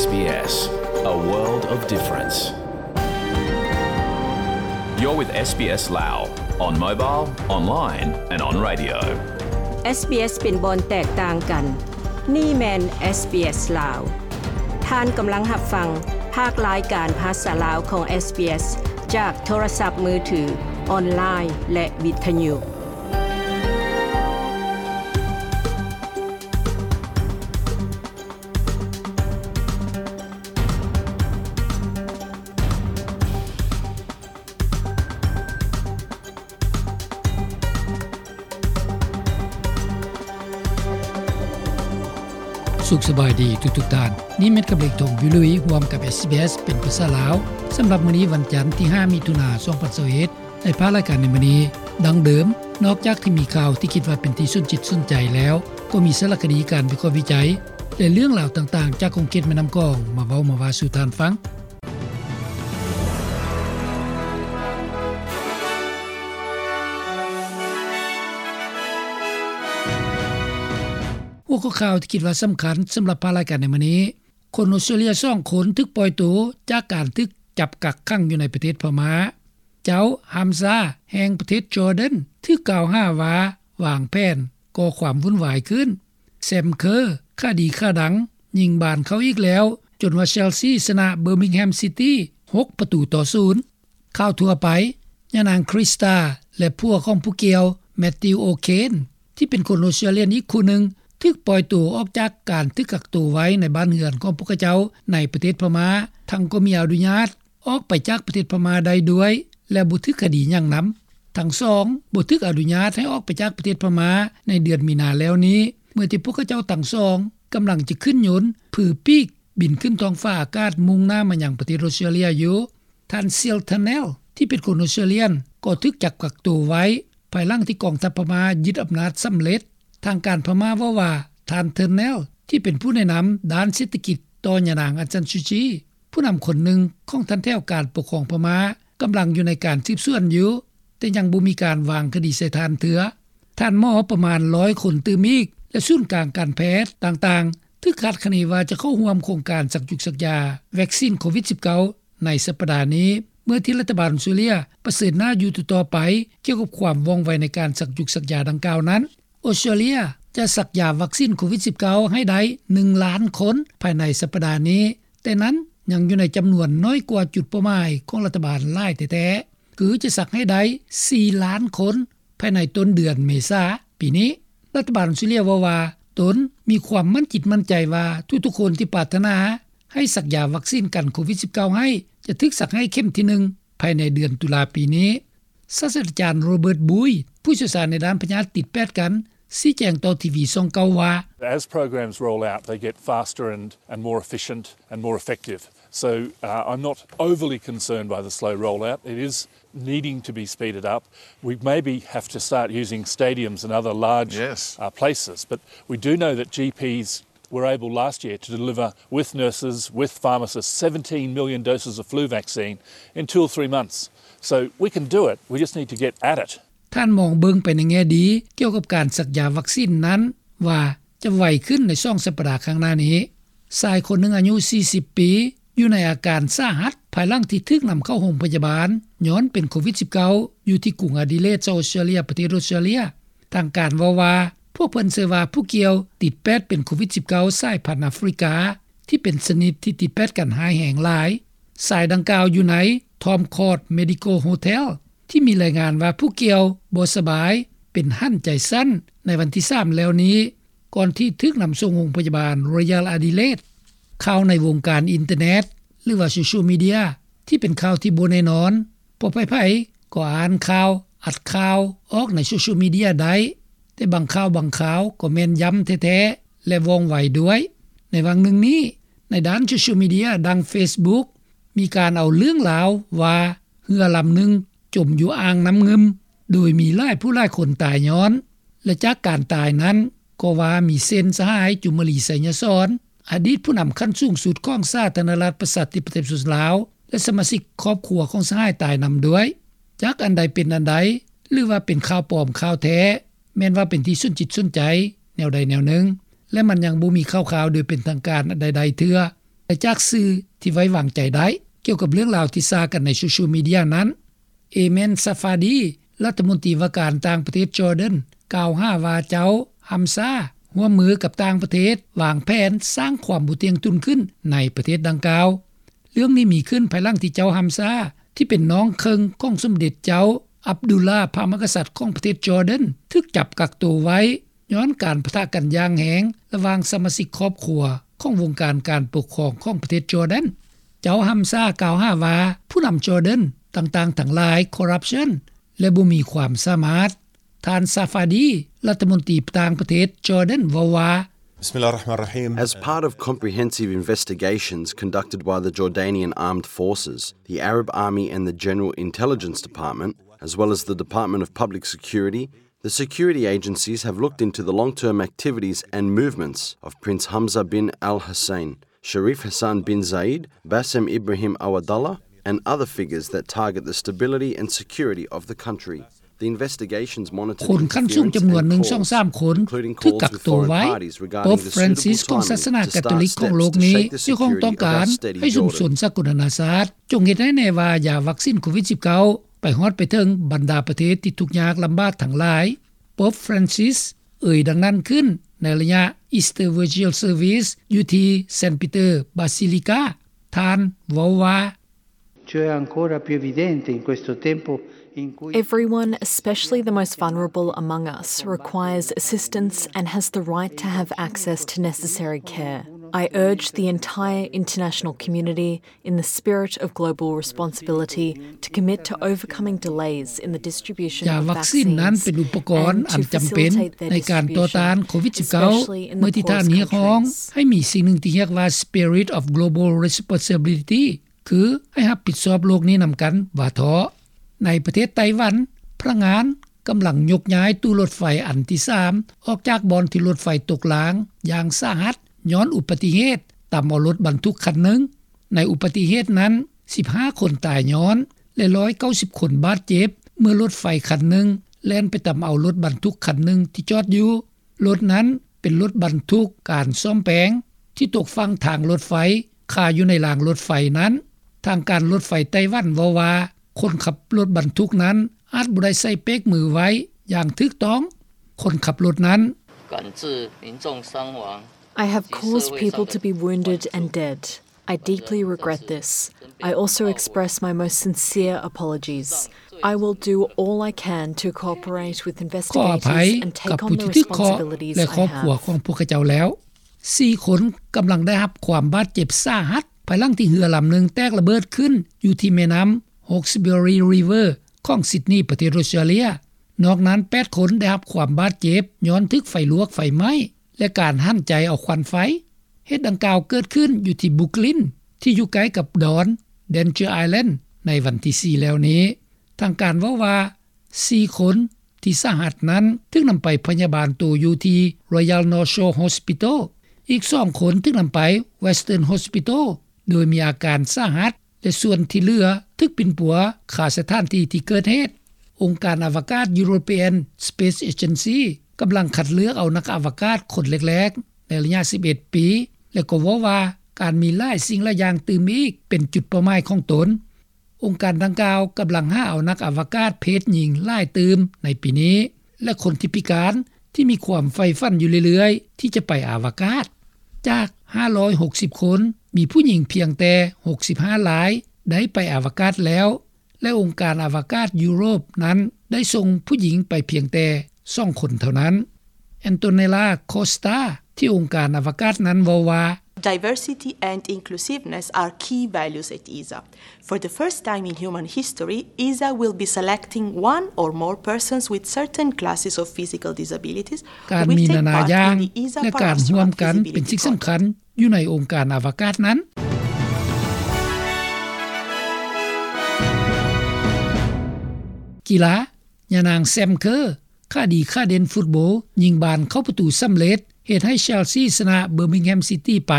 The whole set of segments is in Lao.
SBS, a world of difference. You're with SBS Lao on mobile, online and on radio. SBS ເປັນບ່ອນແຕກຕ່າງກັນ. ນີ້ແມ່ນ SBS ລາວ. ທ່ານກຳລັງຮັບຟັງພາກລາຍການພາສາລາວຂອງ SBS ຈາກໂທລະສັບມືຖື, ອອນລາຍ ແລະ ວິທະຍຸ. ສຸກສະບາຍດີທຸກໆທ່ານ. ນີ້ແມ່ນກັບເລກທອງ ວິລຸຍ ຮ່ວມກັບ SBS ເປັນພາສາລາວ. ສຳລັບມື້ນີ້ວັນຈັນທີຫ້າ ມິຖຸນາ ສອງພັນຊາວເອັດ ໃນພາກລາຍການໃນມື້ນີ້ ດັ່ງເດີມ, ນອກຈາກທີ່ມີຂ່າວທີ່ຄິດວ່າເປັນທີ່ສົນຈິດສົນໃຈແລ້ວ, ກໍມີສາລະຄະດີ, ການວິເຄາະວິໄຈ ແລະ ເລື່ອງລາວຕ່າງໆ ຈາກຂົງເຂດແມ່ນ້ຳຂອງ ມາເວົ້າມາວ່າສູ່ທ່ານຟັງ. ຫົວຂໍ້ຂ່າວທີ່ຄິດວ່າສຳຄັນສຳລັບພາກລາຍການໃນມື້ນີ້, ຄົນອົດສະຕຣາເລຍສອງຄົນຖືກປ່ອຍໂຕຈາກການຖືກຈັບກັກຂັງຢູ່ໃນປະເທດພະມ້າ. ເຈົ້າຮາມຊາ ແຫ່ງປະເທດຈໍແດນ ຖືກກ່າວຫາວ່າວາງແຜນກໍ່ຄວາມວຸ້ນວາຍຂຶ້ນ. ແຊມເຄີ ຄະດີຂ້າດັງ ຍິງບານເຂົ້າອີກແລ້ວ ຈົນວ່າເຊລຊີຊະນະເບີມິງແຮມຊິຕີ້ ຫົກປະຕູຕໍ່ສູນ. ຂ່າວທົ່ວໄປ, ຍານາງຄຣິສຕາ ແລະ ຜົວຂອງຜູ້ກ່ຽວ ແມັດຕິວ ໂອເຄນ ທີ່ເປັນຄົນອົດສະຕຣາເລຍອີກຄູ່ໜຶ່ງ ຖືກປ່ອຍໂຕອອກຈາກການຖືກກັກໂຕໄວ້ໃນບ້ານເຮືອນຂອງພວກເຂົາເຈົ້າໃນປະເທດພະມ້າ, ທັງກໍມີອະນຸຍາດອອກໄປຈາກປະເທດພະມ້າໄດ້ດ້ວຍ ແລະ ບໍ່ຖືກຄະດີຫຍັງນຳ. ທັງສອງບໍ່ຖືກອະນຸຍາດໃຫ້ອອກໄປຈາກປະເທດພະມ້າໃນເດືອນມີນາແລ້ວນີ້, ເມື່ອທີ່ພວກເຂົາເຈົ້າທັງສອງກຳລັງຈະຂຶ້ນຍົນຜືປີກບິນຂຶ້ນທ້ອງຟ້າອາກາດມຸ່ງໜ້າມາຍັງປະເທດອົດສະຕຣາເລຍຢູ່. ທ່ານ ຊິລ ເທີແນລ ທີ່ເປັນຄົນອົດສະຕຣາເລຍ ກໍຖືກຈັບກັກໂຕໄວ້ ພາຍຫຼັງທີ່ກອງທັບພະມ້າຍຶດອຳນາດສຳເລັດ. ທາງການພະມ້າເວົ້າວ່າ ທ່ານ ເທີແນລ ທີ່ເປັນຜູ້ແນະນຳດ້ານເສດຖະກິດຕໍ່ຍານາງ ອາງຊານຊູຈີ ຜູ້ນຳຄົນໜຶ່ງຂອງຖັນແຖວການປົກຄອງພະມ້າ ກຳລັງຢູ່ໃນການສືບສວນຢູ່, ແຕ່ຍັງບໍ່ມີການວາງຄະດີໃສ່ທ່ານເທື່ອ. ທ່ານໝໍປະມານຮ້ອຍຄົນຕື່ມອີກ ແລະ ສູນກາງການແພດຕ່າງໆ ຖືກຄາດຄະເນວ່າຈະເຂົ້າຮ່ວມໂຄງການສັກຢຸກສັກຢາວັກຊີນໂຄວິດສິບເກົ້າ ໃນສັປດານີ້, ເມື່ອທີ່ລັດຖະບານອົດສະຕຣາເລຍປະເຊີນໜ້າຢູ່ຕໍ່ໆໄປ ກ່ຽວກັບຄວາມວ່ອງໄວໃນການສັກຢຸກສັກຢາດັ່ງກ່າວນັ້ນ. ອົດສະຕຣາເລຍຈະສັກຢາວັກຊີນໂຄວິດສິບເກົ້າໃຫ້ໄດ້ໜຶ່ງລ້ານຄົນພາຍໃນສັປດານີ້, ແຕ່ນັ້ນຍັງຢູ່ໃນຈຳນວນໜ້ອຍກວ່າຈຸດເປົ້າໝາຍຂອງລັດຖະບານຫຼາຍແທ້ໆ, ຄືຈະສັກໃຫ້ໄດ້ສີ່ລ້ານຄົນ ພາຍໃນຕົ້ນເດືອນເມສາປີນີ້. ລັດຖະບານອົດສະຕຣາເລຍເວົ້າວ່າ ຕົນມີຄວາມໝັ້ນຈິດໝັ້ນໃຈວ່າ ທຸກໆຄົນທີ່ປາດຖະໜາໃຫ້ສັກຢາວັກຊີນກັນໂຄວິດສິບເກົ້າໃຫ້ ຈະຖືກສັກໃຫ້ເຂັມທີໜຶ່ງພາຍໃນເດືອນຕຸລາປີນີ້. ສາດສະດາຈານ ໂຣເບີດ ບູຍ ຜູ້ຊ່ຽວຊານໃນດ້ານພະຍາດຕິດແປດກັນ ຊີ້ແຈງຕໍ່ທີວີຊ່ອງເກົ້າວ່າ As programs roll out, they get faster and, and more efficient and more effective. So, uh, I'm not overly concerned by the slow rollout. It is needing to be speeded up. We maybe have to start using stadiums and other large, yes, uh, places, but we do know that G Ps were able last year to deliver with nurses, with pharmacists, seventeen million doses of flu vaccine in two or three months. So we can do it. We just need to get at it. ທ່ານມອງເບິ່ງໄປໃນແງ່ດີກ່ຽວກັບການສັກຢາວັກຊີນນັ້ນວ່າ ຈະໄວຂຶ້ນໃນສອງສັບປະດາຂ້າງໜ້ານີ້. ຊາຍຄົນໜຶ່ງອາຍຸສີ່ສິບປີ ຢູ່ໃນອາການສາຫັດ ພາຍຫຼັງທີ່ຖືກນຳເຂົ້າໂຮງພະຍາບານຍ້ອນເປັນໂຄວິດສິບເກົ້າ ຢູ່ທີ່ກຸງອາດີເລດ ສະຫະລັດອົດສະຕຣາເລຍ ປະເທດອົດສະຕຣາເລຍ. ທາງການເວົ້າວ່າ ພວກເພິ່ນເຊື່ອວ່າຜູ້ກ່ຽວຕິດແປດເປັນໂຄວິດສິບເກົ້າ ສາຍພັນອາຟຣິກາ ທີ່ເປັນຊະນິດທີ່ຕິດແປດກັນຮ້າຍແຮງຫຼາຍ. ຊາຍດັ່ງກ່າວຢູ່ໃນ Tom Court Medical Hotel ທີ່ມີລາຍງານວ່າຜູ້ກ່ຽວບໍ່ສະບາຍ ເປັນຫັນໃຈສັ້ນໃນວັນທີສາມແລ້ວນີ້ ກ່ອນທີ່ຖືກນຳສົ່ງໂຮງພະຍາບານ Royal Adelaide. ຂ່າວໃນວົງການອິນເຕີເນັດ ຫຼືວ່າໂຊຊຽວມີເດຍ ທີ່ເປັນຂ່າວທີ່ບໍ່ແນ່ນອນ ເພາະໃຜໆກໍອ່ານຂ່າວ, ອັດຂ່າວອອກໃນໂຊຊຽວມີເດຍໄດ້, ແຕ່ບາງຂ່າວບາງຄາວກໍແມ່ນຢ້ຳແທ້ໆ ແລະ ວ່ອງໄວດ້ວຍ. ໃນຫວ່າງໜຶ່ງນີ້, ໃນດ້ານໂຊຊຽວມີເດຍ ດັ່ງ Facebook ມີການເອົາເລື່ອງລາວວ່າ ເຮືອລຳໜຶ່ງຈົມຢູ່ອ່າງນ້ຳງື່ມ ໂດຍມີຫຼາຍຜູ້ຫຼາຍຄົນຕາຍຍ້ອນ ແລະ ຈາກການຕາຍນັ້ນກໍວ່າມີເຊັ່ນ ສະຫາຍ ຈູມມະລີ ໄຊຍະສອນ ອະດີດຜູ້ນຳຂັ້ນສູງສຸດຂອງສາທາລະນະລັດປະຊາທິປະໄຕປະຊາຊົນລາວ ແລະ ສະມາຊິກຄອບຄົວຂອງສະຫາຍຕາຍນຳດ້ວຍ. ຈັກອັນໃດເປັນອັນໃດ ຫຼືວ່າເປັນຂ່າວປອມຂ່າວແທ້ ແມ່ນວ່າເປັນທີ່ສົນຈິດສົນໃຈແນວໃດແນວໜຶ່ງ ແລະ ມັນຍັງບໍ່ມີຂ່າວຄາວໂດຍເປັນທາງການອັນໃດໆເທື່ອ. ແຕ່ ຈາກສື່ທີ່ໄວ້ວາງໃຈໄດ້. ກ່ຽວກັບເລື່ອງລາວທີ່ຊາກັນໃນໂຊຊຽວມີເດຍນັ້ນ, ເອເມນ ຊາຟາດີ ລັດຖະມົນຕີວ່າການຕ່າງປະເທດຈອເດີນ ກ່າວຫາວ່າເຈົ້າຮຳຊາຮ່ວມມືກັບຕ່າງປະເທດວາງແຜນສ້າງຄວາມບໍ່ທ່ຽງທຸ່ງຂຶ້ນໃນປະເທດດັ່ງກ່າວ. ເລື່ອງນີ້ມີຂຶ້ນພາຍຫຼັງທີ່ເຈົ້າຮຳຊາ ທີ່ເປັນນ້ອງເຄິ່ງຂອງສົມເດັດເຈົ້າອັບດຸລລາ ພະມະຫາກະສັດຂອງປະເທດຈອເດີນ ຖືກຈັບກັກໂຕໄວ້ ຍ້ອນການປະທະກັນຢ່າງແຮງລະຫວ່າງສະມາຊິກຄອບຄົວຂອງວົງການການປົກຄອງຂອງປະເທດຈອເດີນ. ເຈົ້າຮຳຊາກ່າວຫາວ່າຜູ້ນຳຈອເດີນຕ່າງໆທັງຫຼາຍຄໍຣັບຊັນ ແລະ ບໍ່ມີຄວາມສາມາດ. ທ່ານ ຊາຟາດີ ລັດຖະມົນຕີຕ່າງປະເທດຈອເດີນເວົ້າວ່າ بسم الله الرحمن الرحيم. As part of comprehensive investigations conducted by the Jordanian Armed Forces, the Arab Army and the General Intelligence Department, as well as the Department of Public Security, the security agencies have looked into the long-term activities and movements of Prince Hamza bin Al Hussein, Sharif Hassan bin Zayed, Bassem Ibrahim Awadallah, and other figures that target the stability and security of the country. The investigations monitored ຄົນຂັ້ນສູງຈຳນວນໜຶ່ງ ສອງ ສາມຄົນ ຖືກກັກໂຕໄວ້. ໂປບຟຣານຊິສຂອງສາສະໜາກາໂຕລິກຂອງໂລກນີ້ ຍັງຄົງຕ້ອງການໃຫ້ຊຸມຊົນສາກົນນານາຊາດ ຈົ່ງເຮັດໃຫ້ແນ່ວ່າຢາວັກຊິນໂຄວິດສິບເກົ້າ ໄປຮອດໄປເຖິງບັນດາປະເທດທີ່ທຸກຍາກລຳບາກທັງຫຼາຍ. ໂປບຟຣານຊິສເອີ່ຍດັ່ງນັ້ນຂຶ້ນ ໃນໄລຍະ Easter Vigil Service ຢູ່ທີ່ Saint Peter Basilica. ທ່ານເວົ້າວ່າ Ciò è ancora più evidente in questo tempo in cui Everyone, especially the most vulnerable among us, requires assistance and has the right to have access to necessary care. I urge the entire international community, in the spirit of global responsibility, to commit to overcoming delays in the distribution of vaccines and to facilitate their distribution, especially in the poorest countries. ຢາວັກຊິນນັ້ນເປັນອຸປະກອນອັນຈຳເປັນໃນການຕໍ່ຕ້ານໂຄວິດສິບເກົ້າ ເມື່ອທີ່ທ່ານຮຽກຮ້ອງໃຫ້ມີສິ່ງໜຶ່ງທີ່ຮຽກວ່າ Spirit of Global Responsibility ຄືໃຫ້ຮັບຜິດຊອບໂລກນີ້ນຳກັນວ່າເທາະ. ໃນປະເທດໄຕ້ຫວັນ, ພະນັກງານກຳລັງຍົກຍ້າຍຕູ້ລົດໄຟອັນທີສາມອອກຈາກບ່ອນທີ່ລົດໄຟຕົກລາງຢ່າງສາຫັດ ຍ້ອນອຸບັດຕິເຫດຕຳເອົາລົດບັນທຸກຄັນໜຶ່ງ. ໃນອຸບັດຕິເຫດນັ້ນ ສິບຫ້າຄົນຕາຍຍ້ອນ ແລະ ຮ້ອຍເກົ້າສິບຄົນບາດເຈັບ ເມື່ອລົດໄຟຄັນໜຶ່ງແລ່ນໄປຕຳເອົາລົດບັນທຸກຄັນໜຶ່ງທີ່ຈອດຢູ່. ລົດນັ້ນເປັນລົດບັນທຸກການສ້ອມແປງ ທີ່ຕົກຝັ່ງທາງລົດໄຟຄາຢູ່ໃນລາງລົດໄຟນັ້ນ. ທາງການລົດໄຟໄຕ້ຫວັນເວົ້າວ່າ ຄົນຂັບລົດບັນທຸກນັ້ນອາດບໍ່ໄດ້ໃສ່ເບຣກມືໄວ້ຢ່າງຖືກຕ້ອງ. ຄົນຂັບລົດນັ້ນ I have caused people to be wounded and dead. I deeply regret this. I also express my most sincere apologies. I will do all I can to cooperate with investigators and take on the responsibilities I have. ຂໍອະໄພກັບຜູ້ທີ່ຖືກເຄາະ ແລະ ຄອບຄົວຂອງພວກເຂົາເຈົ້າແລ້ວ. ສີ່ຄົນກຳລັງໄດ້ຮັບຄວາມບາດເຈັບສາຫັດ ພາຍຫຼັງທີ່ເຮືອລຳໜຶ່ງແຕກລະເບີດຂຶ້ນຢູ່ທີ່ແມ່ນ້ຳ Hawkesbury River ຂອງ Sydney ປະເທດ Australia. ນອກນັ້ນ ແປດຄົນໄດ້ຮັບຄວາມບາດເຈັບຍ້ອນຖືກໄຟລວກໄຟໄໝ້ ແລະ ການຫັນໃຈເອົາຄວັນໄຟ. ເຫດດັ່ງກ່າວເກີດຂຶ້ນຢູ່ທີ່ Brooklyn ທີ່ຢູ່ໃກ້ກັບດອນ Danger Island ໃນວັນທີສີ່ແລ້ວນີ້. ທາງການເວົ້າວ່າ ສີ່ຄົນທີ່ສາຫັດນັ້ນຖືກນຳໄປພະຍາບານໂຕຢູ່ທີ່ Royal North Shore Hospital. ອີກສອງຄົນຖືກນຳໄປ Western Hospital ໂດຍມີອາການສາຫັດ ແລະ ສ່ວນທີ່ເຫຼືອຖືກປິ່ນປົວຄາສະຖານທີ່ທີ່ເກີດເຫດ. ອົງການອະວະກາດ European Space Agency ກຳລັງຄັດເລືອກເອົານັກອະວະກາດຄົນແລກໆໃນໄລຍະສິບເອັດປີ ແລະ ກໍເວົ້າວ່າການມີຫຼາຍສິ່ງຫຼາຍຢ່າງຕື່ມອີກເປັນຈຸດເປົ້າໝາຍຂອງຕົນ. ອົງການດັ່ງກ່າວກຳລັງຫາເອົານັກອະວະກາດເພດຍິງຫຼາຍຕື່ມໃນປີນີ້ ແລະ ຄົນທີ່ພິການທີ່ມີຄວາມໃຝ່ຝັນຢູ່ເລື້ອຍໆທີ່ຈະໄປອະວະກາດ. ຈາກຫ້າຮ້ອຍຫົກສິບຄົນ ມີຜູ້ຍິງພຽງແຕ່ຫົກສິບຫ້າລາຍໄດ້ໄປອະວະກາດແລ້ວ ແລະ ອົງການອະວະກາດຢູໂຣບນັ້ນໄດ້ສົ່ງຜູ້ຍິງໄປພຽງແຕ່ສອງຄົນເທົ່ານັ້ນ. Antonella Costa ທີ່ອົງການອະວະກາດນັ້ນເວົ້າວ່າ Diversity and inclusiveness are key values at ESA. For the first time in human history, ESA will be selecting one or more persons with certain classes of physical disabilities who will take part in the ESA Paraastronaut Feasibility Project. ການມີນານາຢ່າງ ແລະ ການຮ່ວມກັນເປັນສິ່ງສຳຄັນຢູ່ໃນອົງການອະວະກາດນັ້ນ. ກິລາ. ຍານາງ ແຊມ ເຄີ ຂາດີຂາເດັ່ນຟຸດໂບຍິງບານເຂົ້າປະຕູສຳເລັດ ເຮັດໃຫ້ເຊລຊີຊະນະເບີມິງແຮມຊິຕີໄປ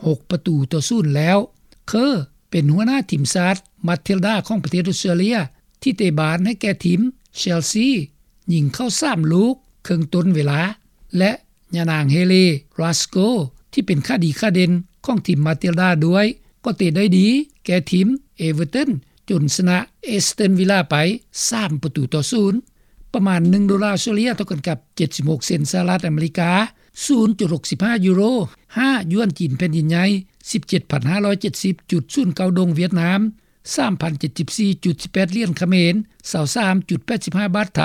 ຫົກປະຕູຕໍ່ສູນແລ້ວ. ເຄີ ເປັນຫົວໜ້າທີມຊາດມາທິລດາຂອງປະເທດອົດສະຕຣາເລຍ ທີ່ເຕະບານໃຫ້ແກ່ທີມເຊລຊີ ຍິງເຂົ້າສາມລູກເຄິ່ງຕົ້ນເວລາ ແລະ ຍານາງ ເຮເລ ຣາສໂກ ທີ່ເປັນຂາດີຂາເດັ່ນ ຂອງທີມ Matilda ດ້ວຍ ກໍເຕະໄດ້ດີແກ່ທີມ Everton ຈົນຊະນະ Aston Villa ໄປ ສາມປະຕູຕໍ່ສູນ. ປະມານໜຶ່ງໂດລາອອສເຕຣເລັຽ ເທົ່າກັນກັບ ເຈັດສິບຫົກເຊັນສະຫະລັດອາເມລິກາ, ສູນຈຸດຫົກສິບຫ້າຢູໂຣ, ຫ້າຢວນຈີນແຜ່ນດິນໃຫຍ່, ສິບເຈັດພັນຫ້າຮ້ອຍເຈັດສິບຈຸດສູນເກົ້າດົງຫວຽດນາມ, ສາມພັນເຈັດສິບສີ່ຈຸດສິບແປດຫຼຽນຂະເໝນ, ຊາວສາມຈຸດແປດສິບຫ້າບາດໄທ,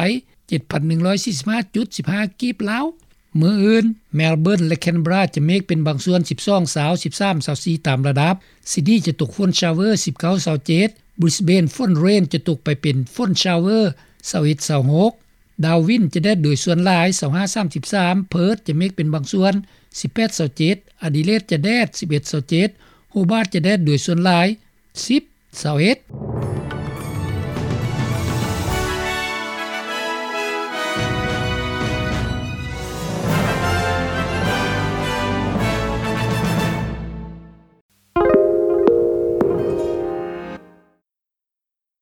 ເຈັດພັນໜຶ່ງຮ້ອຍສີ່ສິບຫ້າຈຸດສິບຫ້າກີບລາວ. ມື້ອື່ນ Melbourne ແລະ Canberra ຈະເມກເປັນບາງສ່ວນ ສິບສອງຊາວ, ສິບສາມຊາວສີ່ຕາມລະດັບ. Sydney ຈະຕົກຝົນ shower ສິບເກົ້າຊາວເຈັດ, Brisbane ຝົນ rain ຈະຕົກໄປເປັນຝົນ shower ຊາວເອັດຊາວຫົກ, Darwin ຈະແດດໂດຍສ່ວນຫຼາຍ ຊາວຫ້າສາມສິບສາມ, Perth ຈະເມກເປັນບາງສ່ວນ ສິບແປດຊາວເຈັດ, Adelaide ຈະແດດ ສິບເອັດຊາວເຈັດ, Hobart ຈະແດດໂດຍສ່ວນຫຼາຍ ສິບຊາວເອັດ.